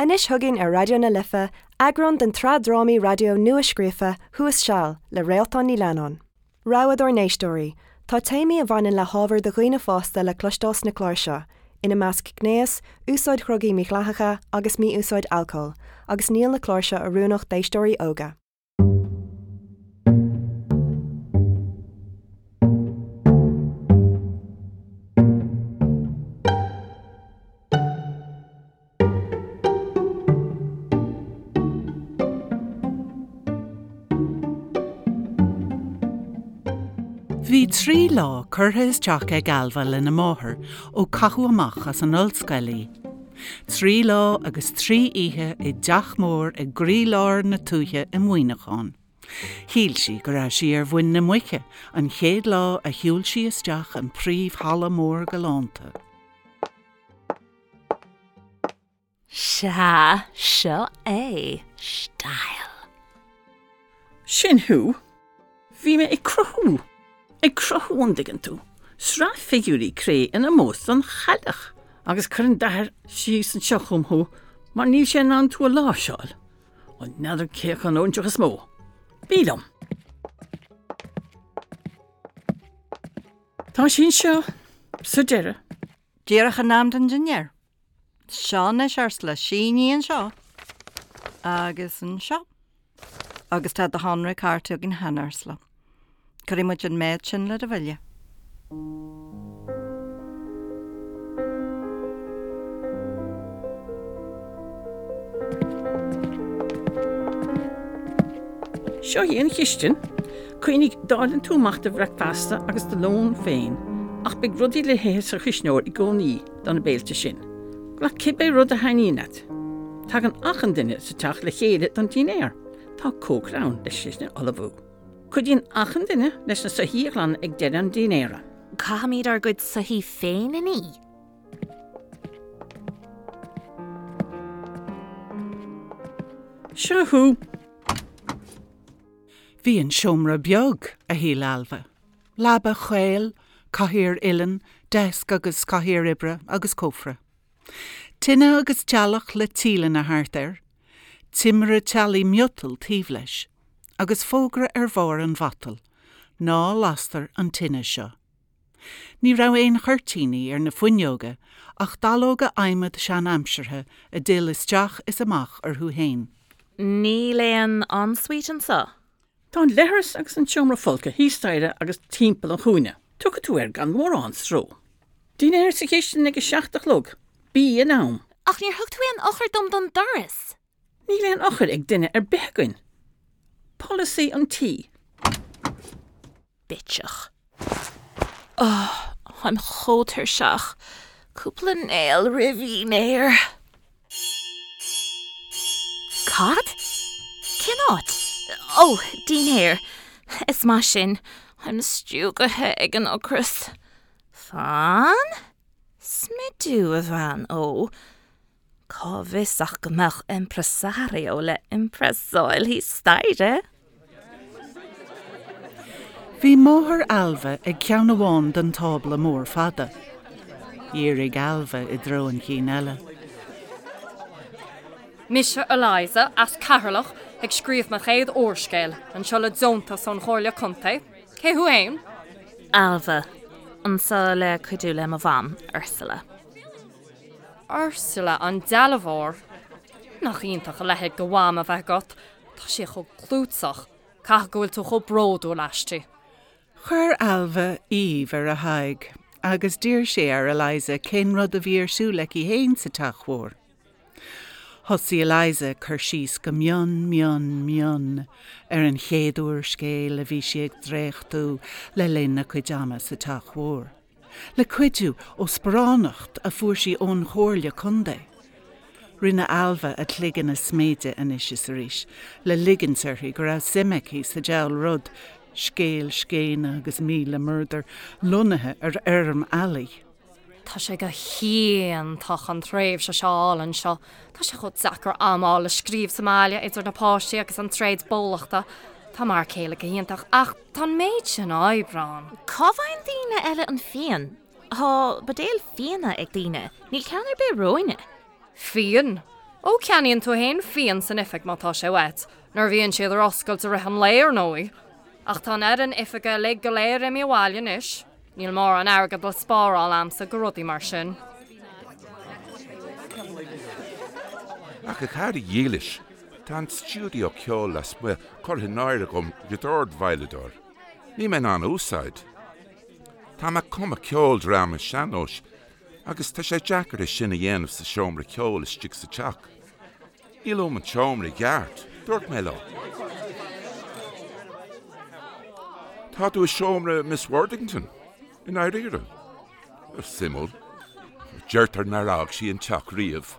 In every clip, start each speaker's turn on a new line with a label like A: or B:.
A: Anois chugainn ar Raidió na Life, eagrán den tsraith drámaí raidió nua-scríofa Thuas Seal le Réaltán Ní Leannáin. Rabhadh dár n-éisteoirí, tá téamaí a bhaineann le hábhar do dhaoine fásta le cloisteáil sna cláir seo, ina measc gnéas, úsáid dhrugaí mídhleathacha agus mí-úsáid alcóil, agus níl na cláir seo oiriúnach d'éisteoirí óga.
B: Bhí 3 lá curtha isteach ag Ailbhe lena máthair ó caitheadh amach as an ollscoil í. 3 lá agus 3 oíche i dteach mór i gcroílár na tuaithe i Muineachán. Shíl sí go raibh sí ar mhuin na muice an chéad lá a shiúil sí isteach an príomh-halla mór galánta.
C: Sea, seo é style.
D: Sin thú. Bhí mé ag cruthú. Ag cruthú, an dtuigeann tú. Sraith figiúirí cré in ómós don chailleach. Agus cuireann d'athair síos anseo chugam thú mar níl sé in ann tú a láimhseáil. Ó n'fheadar cé acu an óinseach is mó. Bí liom. Tá sí anseo sa deireadh.
E: Díreach in am don dinnéar. Seo anois, Ursula, sínigh anseo agus anseo. Agus tá do shonraí cárta againn cheana, Ursula. Cuirfidh muid an méid sin le do bhille.
D: Seo í an chistin. Cuimhnigh, dáileann tú amach do bhricfeasta agus do lón féin, ach beidh rudaí le hithe sa chuisneoir i gcónaí do na béilte sin. Glac cibé rud a thaitníonn leat. Tagann achan duine sa teach le chéile don dinnéar. Tá cócaire ann leis sin a ullmhú. Cuidíonn achan duine leis na soithí a ghlanadh ag deireadh an dinnéara.
C: Caithfimid ár gcuid soithí féin a ní.
D: Seo thú!
B: Bhí an seomra beag, a shíl Ailbhe. Leaba chaol, cathaoir uilleann, deasc agus cathaoir oibre agus cófra. Tine agus teallach le tíleanna thart air, timire teallaigh miotail taobh leis, agus fógra ar bharr an mhatail, Ná lastar an tine seo. Ní raibh aon chuirtíní ar na fuinneoga ach dallóga adhmaid sean-aimseartha a d'fhill isteach is amach orthu fhéin.
C: Níl aon ensuite anseo.
D: Tá an leithreas agus an seomra folctha thíos staighre agus timpeall an chúinne. Tiocfaidh tú air gan mórán stró. Dinnéar sa chistin ag a seacht a chlog. Bí in am.
C: Ach níor thug tú aon eochair dom don doras!
D: Níl aon eochair ag duine ar bith againn. Polasaí an tí.
C: Bitseach. Oh, táim chomh tuirseach. Cúpla néal roimh dhinnéar. Cad? Cén áit? Oh, dinnéar. Is maith sin. Táim stiúgaithe ag an ocras. Fan? Smidiú, a bhean ó. Cá bhfios ach go mbeadh impresario le impressáil thíos staighre?
B: Bhí máthair Ailbhe ag ceann amháin den tábla mór fada. Dhírigh Ailbhe i dtreo an chinn eile.
F: Mise Eliza, as Ceatharlach, ag scríobh mo chéad úrscéil, anseo le deontas ón Chomhairle Contae. Cé thú fhéin?
C: Ailbhe, anseo le cuidiú le mo mham, Ursula.
F: Ursula an dealbhóir. Nach iontach a leithéid de mham a bheith agat, tá sí chomh clúiteach. Caithfidh go bhfuil tú chomh bródúil aisti.
B: Chuir Ailbhe aoibh ar a haghaidh agus d'iarr sí ar Eliza cén rud a bhí ar siúl aici fhéin sa teach mhór. Thosaigh Eliza ag cur síos go mion mion mion ar an chéad úrscéal a bhí sí ag dréachtú le linn a cuid ama sa teach mhór. Le cuidiú ó sparánacht a fuair sí ón Chomhairle Contae. Rinne Ailbhe a cloigeann a sméideadh anois is arís le ligint uirthi go raibh suim aici sa diabhal rud, scéal scéine agus 1000 murdar lonnaithe ar fheirm eallaigh.
F: Tá sé go hiontach an tréimhse seo a fháil anseo. Tá sé chomh deacair am a fháil le scríobh sa mbaile idir na páistí agus an tréad bólachta. Tá m'fhear céile go hiontach ach tá an méid sin oibre ann.
C: Cá bhfaigheann daoine eile an fíon? Tá buidéil fíona ag daoine, níl ceann ar bith romhainne.
F: Fíon? Ó, ceannaíonn tú fhéin fíon san oifig má tá sé uait, nuair a bhíonn siad ar oscailt i rith an lae, ar ndóigh. Ach tá an fhoireann oifige uilig go léir imithe abhaile anois. Níl mórán airgid le spáráil a'msa go rudaí mar sin.
G: Ach a chara dhílis, tá an stiúideo ceoil lasmuigh curtha in áirithe agam do dordveidhleadóir. Níl mé in ann a úsáid. Tá mé ag cumadh ceoldráma sean-nóis Agus tá sé deacair é sin a dhéanamh sa seomra ceoil istigh sa teach. Níl uaim an tseomra i gceart, dúirt mé leo. Tá tú i seomra Miss Worthington, i ndáiríre? Suimiúil. Deirtear nár fhág sí an teach riamh.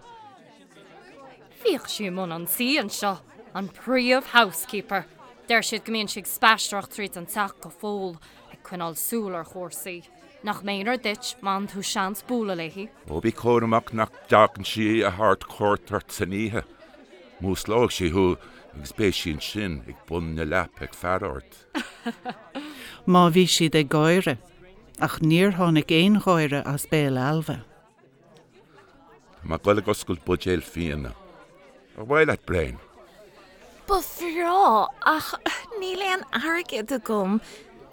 F: Bhíodh sí i mbun an tí anseo, an príomh-housekeeper. Deir siad go mbíonn sí ag spaisteoireacht tríd an teach go fóill, ag coinneáil súil ar chúrsaí. Nach méanar duit má fhaigheann tú seans bualadh léi.
G: Ó bí cúramach nach dtagann sí a thabhairt cuairt ort san oíche. Músclóidh sí thú agus beidh sí ansin ag bun na leapa ag faire ort.
B: Má bhí siad ag gáire, ach níor tháinig aon gháire as béal Ailbhe.
G: Tá mé ag goil ag oscailt buidéal fíona. Ar mhaith leat braon?
C: Ba bhreá, ach níl aon airgead agam.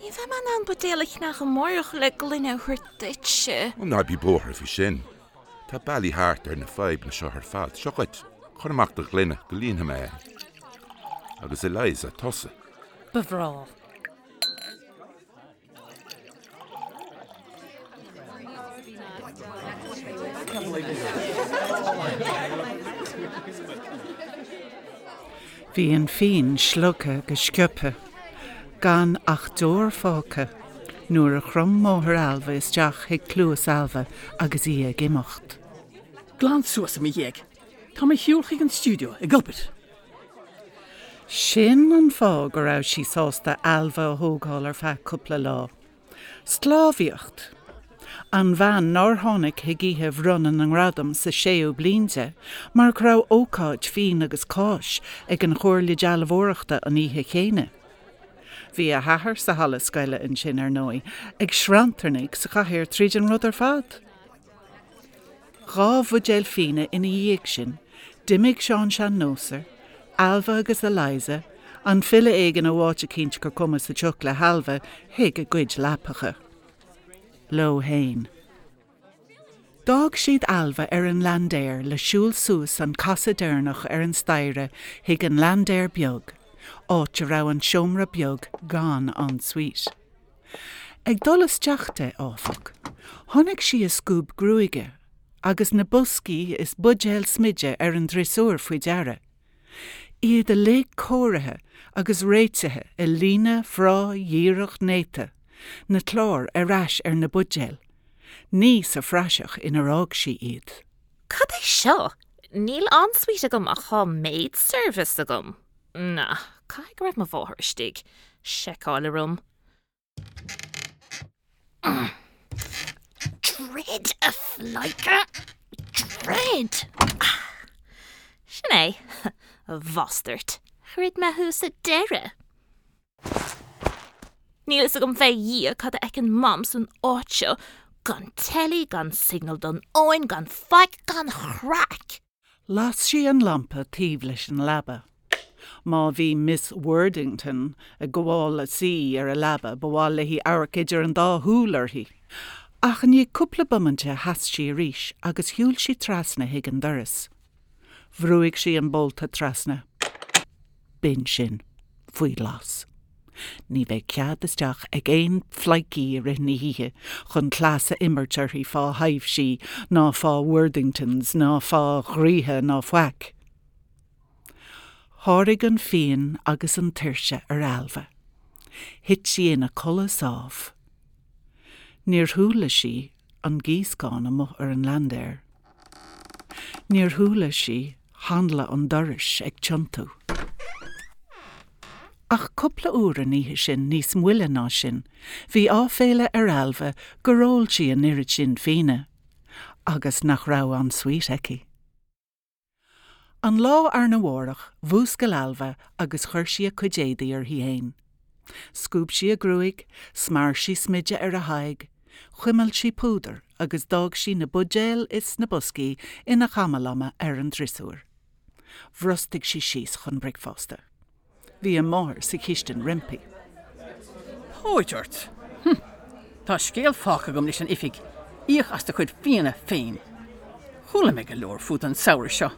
C: Ní bheidh mé in ann buidéal a cheannach amárach le gloine a thabhairt duitse.
G: Ó ná bí buartha faoi sin. Tá bealaí thart ar na fadhbanna seo ar fad. Seo dhuit. Cuir amach do ghloine go líonfaidh mé é. Agus Eliza, tusa.
F: Ba bhreá.
B: Bhí an fíon slogtha go sciobtha, gan ach deoir fágtha, nuair a chrom máthair Ailbhe isteach chuig cluas Ailbhe agus í ag imeacht.
D: Glan suas i mo dhiaidh. Tá mé ar shiúl chuig an stiúideo ag obair.
B: Sin an fáth go raibh sí sásta Ailbhe a thógáil ar feadh cúpla lá. Sclábhaíocht! An bhean nár tháinig chuig oíche bhronnadh na ngradam sa séú bliain di mar go raibh ócáid fíon agus cáis ag an Chomhairle Dealbhóireachta an oíche chéanna. Bhí a hathair sa halla scoile ansin, ar ndóigh, ag sranntarnaigh sa chathaoir tríd an rud ar fad. 2 bhuidéal fíona ina dhiaidh sin, d'imigh Seán Sean-Nóser, Ailbhe agus Eliza, an file éigin ó áit eicínt gur cuma sa tsioc le hAilbhe, chuig a gcuid leapacha. Leo fhéin. D'fhág siad Ailbhe ar an laindéar le siúl suas an casadh deireanach ar an staighre chuig an laindéar beag, áit a raibh an seomra beag gan ensuite. Ag dul isteach di, áfach, chonaic sí a scuab gruaige agus na boscaí is buidéil smididh ar an driosúr faoi deara, iad uilig cóirithe agus réitithe i líne bhreá dhíreach néata, na cláir ar ais ar na buidéil, ní sa phraiseach inar fhág sí iad.
C: Cad é seo? Níl ensuite agam ach tá maid service agam. Na, caithfidh go raibh mo mháthair istigh. Seiceáil orm. Druid, a phleidhce! Druid! Sin é, a bhastairt. Dhruid mé thú sa deireadh. Níl fhios agam fé Dhia cad a fheiceann Mam san áit seo. Gan teilí, gan signal don fhóin, gan faic, gan chraic!
B: Las sí an lampa taobh leis an leaba. Má bhí Miss Worthington ag gabháil a suí ar a leaba ba mhaith léi amharc idir an dá shúil uirthi. Ach i ndiaidh cúpla bomainte sheas sí arís agus shiúil sí trasna chuig an doras. Bhrúigh sí an bolta trasna. B'in sin. Faoi ghlas. Ní bheidh cead isteach ag aon phleidhcí i rith na hoíche chun cleas a imirt uirthi fá thaibhsí ná fá Worthingtons ná fá dhraoithe ná faic. Sháraigh an fíon agus an tuirse ar Ailbhe. Thit sí ina codladh sámh. Níor chuala sí an gíoscán amuigh ar an laindéar. Níor chuala sí hanla an dorais ag tiontú. Ach cúpla uair an oíche sin níos moille ná sin, bhí áiféala ar Ailbhe gur ól sí an oiread sin fíona, agus nach raibh ensuite aici. An lá arna mhárach, mhúscail Ailbhe agus chuir sí a cuid éadaí uirthi fhéin. Scuab sí a gruaig, smear sí smideadh ar a haghaidh, chuimil sí púdar agus d'fhág sí na buidéil is na boscaí ina chamalama ar an driosúr. Bhrostaigh sí síos chun bricfeasta. Bhí a máthair sa chistin roimpi.
D: Póit ort! Hm! Tá scéal fágtha agam leis an oifig, íoc as do chuid fíona féin. Chuala mé go leor fút an samhradh seo.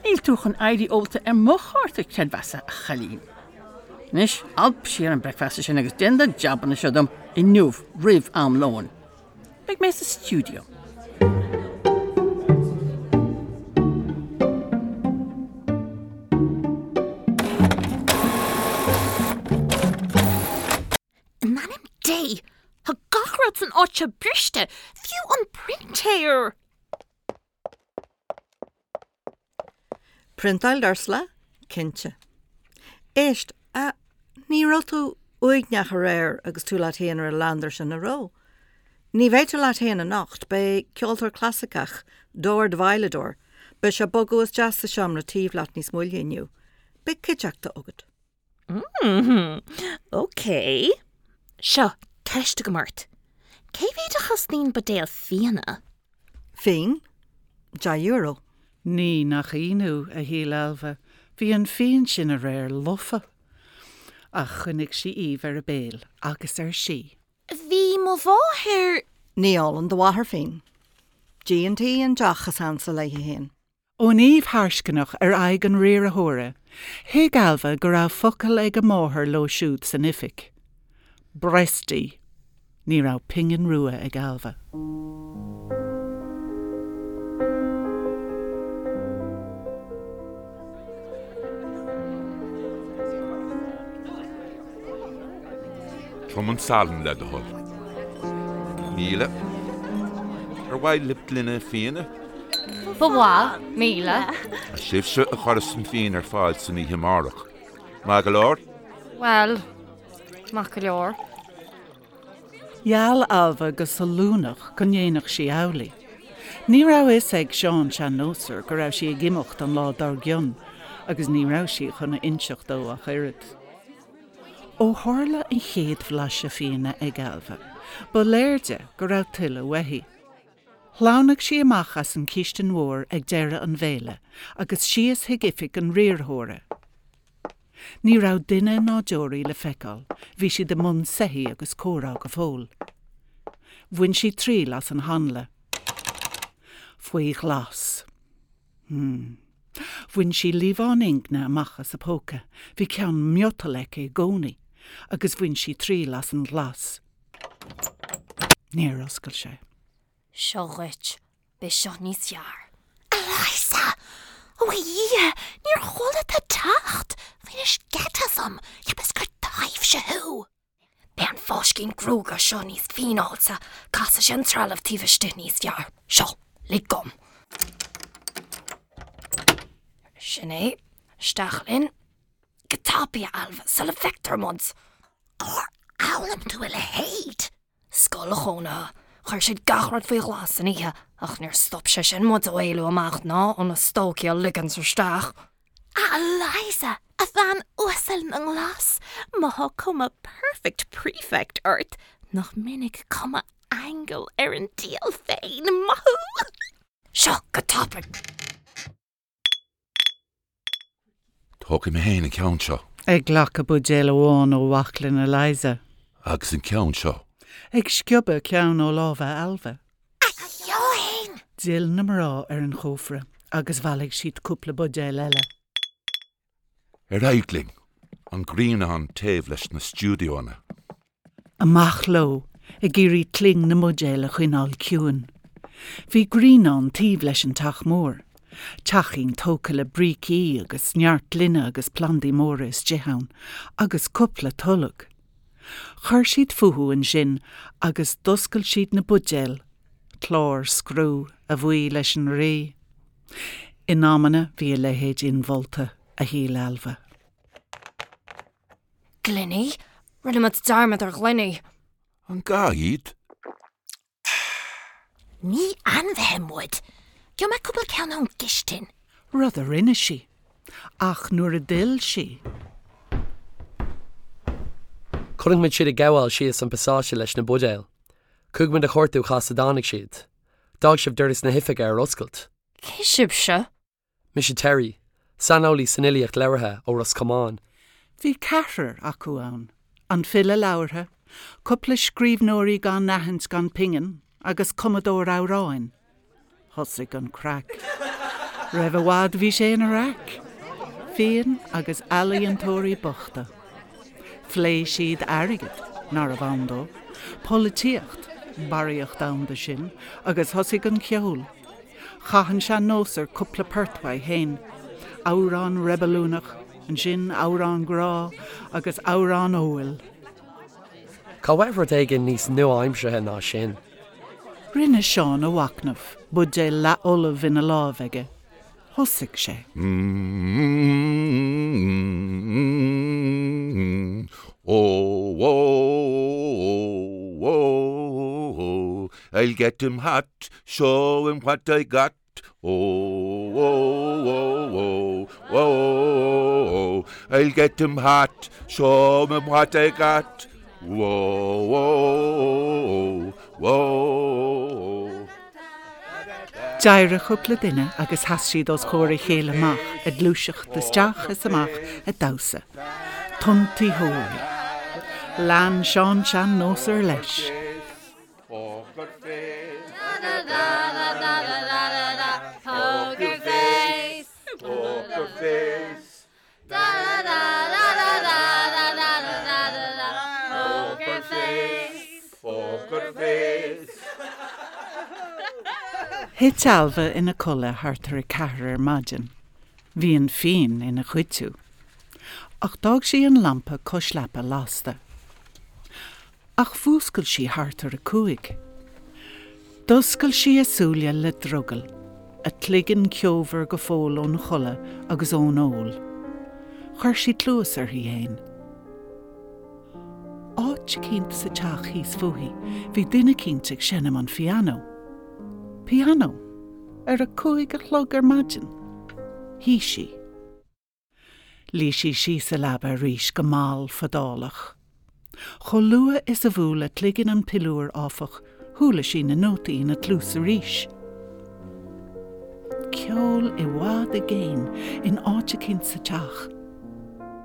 D: Níl tú chun éirí ólta ar mo chárta creidmheasa, a chailín. Anois, alp siar an bricfeasta sin agus déan do jabanna seo dom inniu roimh am lóin. Beidh mé sa stiúideo.
C: In ainm Dé! Tá gach rud san áit seo briste, fiú an printéir!
E: Priontáil d'Ursula? Cinnte. Éist, a, ní raibh tú uaigneach aréir agus tú leat féin ar an leander sin, an raibh? Ní bheidh tú leat féin anocht, beidh ceoltóir clasaiceach, dord-veidhleadóir, beidh sé ag bogadh isteach sa seomra taobh leat níos moille inniu. Beidh cuideachta agat.
C: Mmm, ok. Seo, ceist agam ort. Cé mhéad a chosnaíonn buidéal fíona?
E: Fíon? €10.
B: Ní nach ionadh, a shíl Ailbhe, bhí an fíon sin aréir lofa. Ach choinnigh sí aoibh ar a béal agus ar sí.
C: Bhí mo mháthair.
E: Ní ólann do mháthair fíon. G&T an deoch is ansa léi féin.
B: Ón aoibh tharscainneach ar aghaidh an riarthóra, thuig Ailbhe go raibh focal ag a máthair leo siúd san oifig. Bresty! Ní raibh pingin rua ag Ailbhe.
G: Trom an salann le do thoil. 1000. Ar mhaith libh gloine fíona?
F: Ba mhaith, 1000.
G: Sibhse a chuirfeas an fíon ar fáil san oíche amárach. Maith go leor?
F: Bhuel, maith go leor.
B: Gheall Ailbhe go sollúnach go ndéanfadh sí amhlaidh. Ní raibh a fhios ag Seán Sean-Nósar go raibh sí ag imeacht an lá dár gcionn agus ní raibh sí chun a inseacht dó ach oiread. Ó tharla an chéad bhlaiseadh fíona ag Ailbhe, ba léir di go raibh tuilleadh uaithi. Shleamhnaigh sí amach as an chistin mhór ag deireadh an bhéile agus síos chuig oifig an riarthóra. Ní raibh duine ná deoraí le feiceáil, bhí siad i mbun soithí agus comhrá go fóill. Bhain sí triail as an hanla. Faoi ghlas. Hmm. Bhain sí liamhán ingne amach as a póca, bhí ceann miotail aici i gcónaí, agus bhain sí triail as an ghlas. Níor oscail sé.
F: Seo dhuit. Beidh seo níos fearr.
C: Eliza! Ó a Dhia, níor chuala tú teacht! Bhainis geit asam, cheapas gur taibhse thú!
F: Beidh an fáiscín gruaige seo níos fíneáilte, casfaidh sé an trealamh taobh istigh níos fearr. Seo, lig dom. Sin é. Isteach linn.
C: Go tapaidh, a Ailbhe, sula bhfeictear muid! Cár fhoghlaim tú a leithéid?
F: Scoil chónaithe. Chuir siad gach rud faoi ghlas san oíche, ach níor stop sé sin muid ó éalú amach ná ó na stócaigh a ligint isteach.
C: A Eliza, a bhean uasal na nglas, má thá cuma perfect prefect ort, nach minic cuma aingil ar an diabhal féin, maith thú!
F: Seo, go tapaidh!
G: Tógfaidh mé féin an ceann seo.
B: Ag glacadh buidéal amháin ó bhaclainn Eliza.
G: Agus an ceann seo.
B: Ag sciobadh ceann ó lámha Ailbhe.
C: A Sheáin!
B: D'fhill na mná ar an chófra agus bhailigh siad cúpla buidéal eile.
G: Ar aghaidh linn! An grianán taobh leis na stiúideonna.
B: Amach leo, ag iarraidh cling na mbuidéal a choinneáil ciúin. Bhí grianán taobh leis an teach mór. Teachín tógtha le brící agus neart gloine agus plandaí móra istigh ann, agus cúpla tolg. Chuir siad fúthu ansin agus d'oscail siad na buidéil, clár scriú, a bhuí leis an Rí. In amanna bhí a leithéid inmholta, a shíl Ailbhe.
F: Gloiní? Rinne muid dearmad ar ghloiní.
G: An gá iad?
C: Ní ainmhithe muid. Gheobhaidh mé cúpla ceann ón gcistin.
B: Rud a rinne sí. Ach nuair a d'fhill sí.
H: Chonaic muid siad ag gabháil síos an pasáiste leis na buidéil. Chuaigh muid a chuartú cá as a dtáinig siad. D'fhág sibh doras na hoifige ar oscailt.
F: Cé sibhse?
H: Mise Terry. saineolaí san fhilíocht labhartha ó Ros Comáin.
B: Bhí ceathrar acu ann, an file labhartha, cúpla scríbhneoirí gan aithint gan pingin agus cumadóir amhráin. Thosaigh an craic. Roimh i bhfad bhí sé ina raic. Fíon agus ealaíontóirí bochta. Phléigh siad airgead, nárbh ann dó, polaitíocht, barraíocht ann de sin, agus thosaigh an ceol. Chaith an sean-nósar cúpla port uaidh féin, amhrán reibiliúnach, ansin amhrán grá agus amhrán óil.
H: Cá bhfuil rud éigin níos nua-aimseartha ná sin?
B: Rinne Seán a mhachnamh, buidéal leathfholamh ina láimh aige. Thosaigh sé.
G: Oh, oh, oh, oh, I'll get him hot, show him what I got. Oh, oh, oh, oh, oh, I'll get him hot, show him what I got. Whoa, whoa, whoa.
B: D'éirigh cúpla duine agus sheas siad os comhair a chéile amach ag gluaiseacht isteach is amach ag damhsa. Tiontaitheoirí. Lean Seán Sean-Nósar leis.
G: Poker face.
C: Poker face.
G: Poker face. Poker face. Poker face.
B: Thit Ailbhe ina codladh thart ar a ceathair ar maidin. Bhí an fíon ina chuidiú. Ach d'fhág sí an lampa cois leapa lasta. Ach mhúscail sí thart ar a cúig. D'oscail sí a súile le drogall, a cloigeann ceomhar go fóill ón chodladh agus ón ól. Chuir sí cluas uirthi fhéin. Áit eicínt sa teach thíos fúithi bhí duine eicínt ag seinm an phianó. Pianó! Ar a cúig a chlog ar maidin! Shuigh sí. Luigh sí síos sa leaba arís go mall fadálach. Chomh luath is a bhuail a cloigeann an piliúr, áfach, chuala sí na nótaí ina cluas arís. Ceol i bhfad i gcéin in áit eicínt sa teach.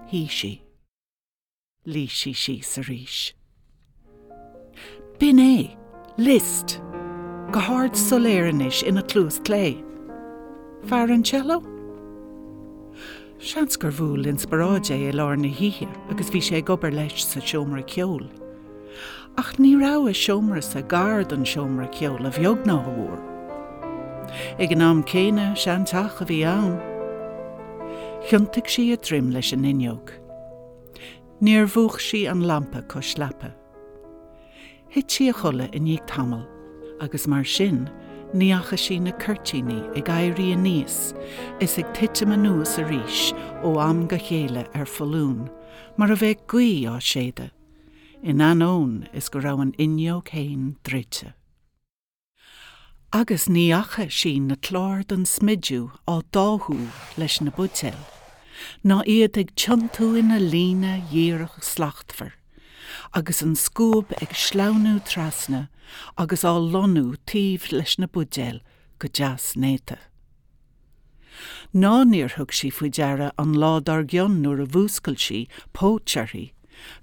B: Shuigh sí. Luigh sí síos arís. B'in é! Liszt! Go hard soiléir anois ina cluas clé. Fear an cello? Seans gur bhuail inspioráid é i lár na hoíche agus bhí sé ag obair leis sa seomra ceoil. Ach ní raibh a seomrasa gar don seomra ceoil a bheag ná a mhór. Ag an am céanna, seanteach a bhí ann. Thiontaigh sí a droim leis an fhuinneog. Níor mhúch sí an lampa cois leapa. Thit sí a chodladh i ndiaidh tamaill agus mar sin ní fhaca sí na cuirtíní ag éirí aníos is ag titim anuas arís ó am go chéile ar foluain mar a bheadh gaoth á séideadh, in ainneoin is go raibh an fhuinneog fhéin druidte. Agus ní fhaca sí na cláir don smidiú á dtáthú leis na buidéil, ná iad ag tiontú ina líne dhíreach slachtmhar, agus an scuab ag sleamhnú trasna agus á lonnú taobh leis na buidéil go deas néata. Ná níor thug sí faoi deara an lá dár gcionn nuair a mhúscail sí, póit uirthi,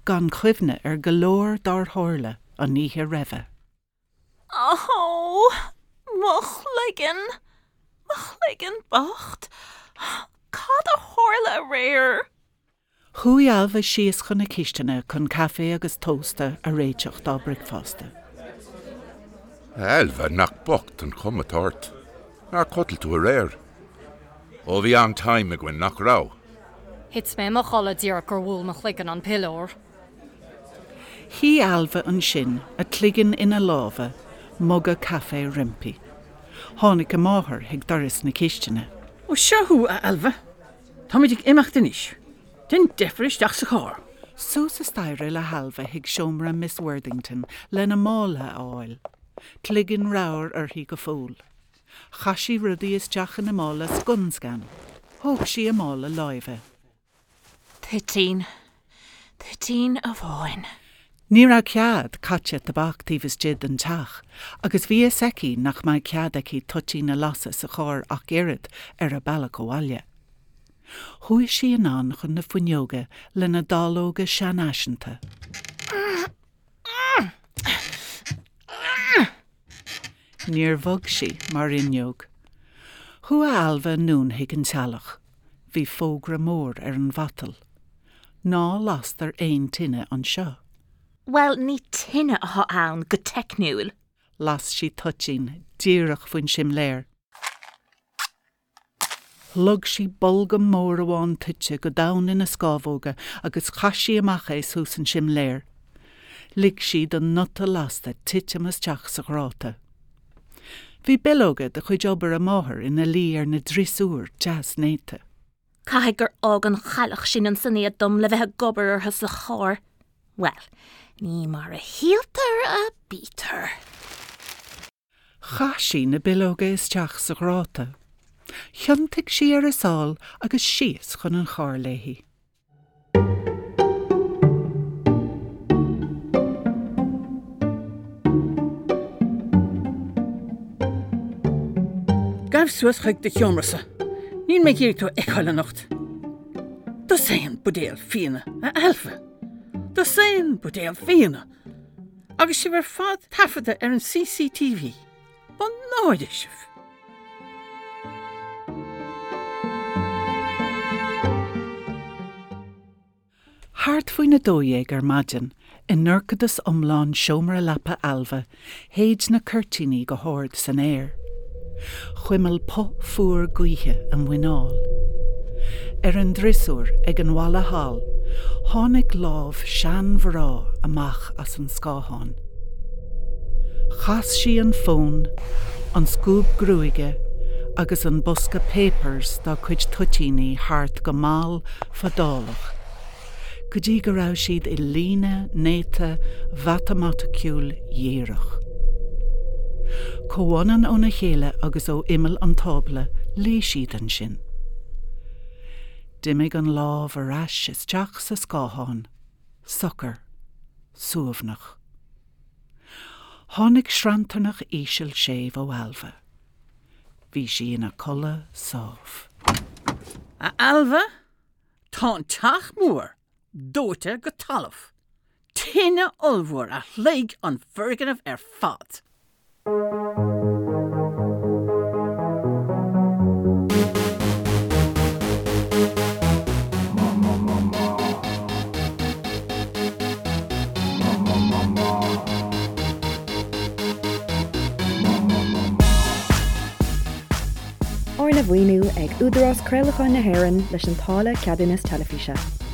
B: gan chuimhne ar go leor dár tharla an oíche roimhe.
C: Ó, mo chloigeann! Mo chloigeann bocht! Cad a tharla aréir?
B: Chuaigh Ailbhe síos chun na cistine chun caife agus tósta a réiteach dá bricfeasta.
G: Ailbhe, nach bocht an chuma atá ort. Nár chodail tú aréir? Ó, bhí an-time againn, nach raibh?
F: Thit mé i mo chodladh díreach gur bhuail mo chloigeann an piliúr.
B: Shuigh Ailbhe ansin, a cloigeann ina lámha, muga caife roimpi. Tháinig a máthair chuig doras na cistine.
D: Ó, seo thú, a Ailbhe. Táimid ag imeacht anois. Déan deifir isteach sa charr.
B: Suas an staighre le hAilbhe chuig seomra Miss Worthington lena mála a fháil. Cloigeann ramhar uirthi go fóill. Chaith sí rudaí isteach ina mála scun scan. Thóg sí a mála láimhe.
C: Toitín. Toitín amháin.
B: Ní raibh cead caite tobac taobh istigh den teach agus bhí fhios aici nach mbeadh cead aici toitín a lasadh sa charr ach oiread ar a bealach abhaile. Chuaigh sí anonn chun na fuinneoige lena dallóga seanfhaiseanta. Níor bhog sí mar fhuinneog. Chuaigh Ailbhe anonn chuig an teallach. Bhí fógra mór ar an mhatal. Ná lastar aon tine anseo.
C: Bhuel, ní tine atá ann, go teicniúil.
B: Las sí toitín díreach faoin simléar. Shlog sí bolgam mór amháin toite go domhain ina scámhóga agus chaith sí amach é suas an simléar. Lig sí don nuta lasta titim isteach sa ghráta. Bhí bileoga de chuid obair a máthar ina luí ar na driosúir deas néata.
C: Caithfidh gur fhág an chailleach sin ansan iad dom le bheith ag obair orthu sa charr. Bhuel, ní mar a shíltear a bítear.
B: Chaith sí na bileoga isteach sa ghráta. Thiontaigh sí ar a sál agus síos chun an chairr léi.
D: Gabh suas chuig do sheomra-sa. Níl mé ag iarraidh tú a fheiceáil anocht. Dosaen buidéal fíona, a Ailbhe. Dosaen buidéal fíona! Agus sibh ar fad taifeadta ar an CCTV. Mo náire sibh!
B: Thart faoina 12 ar maidin, i ndorchadas iomlán seomra leapa Ailbhe, shéid na cuirtíní go hard san aer. Chuimil puth fuar gaoithe a muineál. Ar an driosúr ag an bhalla thall, tháinig lámh seanmhná amach as an scáthán. Chas sí an fón, an scuab gruaige agus an bosca papers dá cuid toitíní thart go mall fadálach. go dtí go raibh siad i líne néata mhatamaiticiúil dhíreach. Comhionann óna chéile agus ó imeall an tábla, luigh siad ansin. D'imigh an lámh ar ais isteach sa scáthán, socair, suaimhneach. Tháinig sranntarnach íseal séimh ó Ailbhe. Bhí sí ina codladh sámh.
D: A Ailbhe? Tá an teach mór dóite go talamh. Tine ollmhór a shloig an foirgneamh ar fad.
A: Arna mhaoiniú ag Údarás Craolacháin na hÉireann leis an táille Ceadúnas Teilifíse.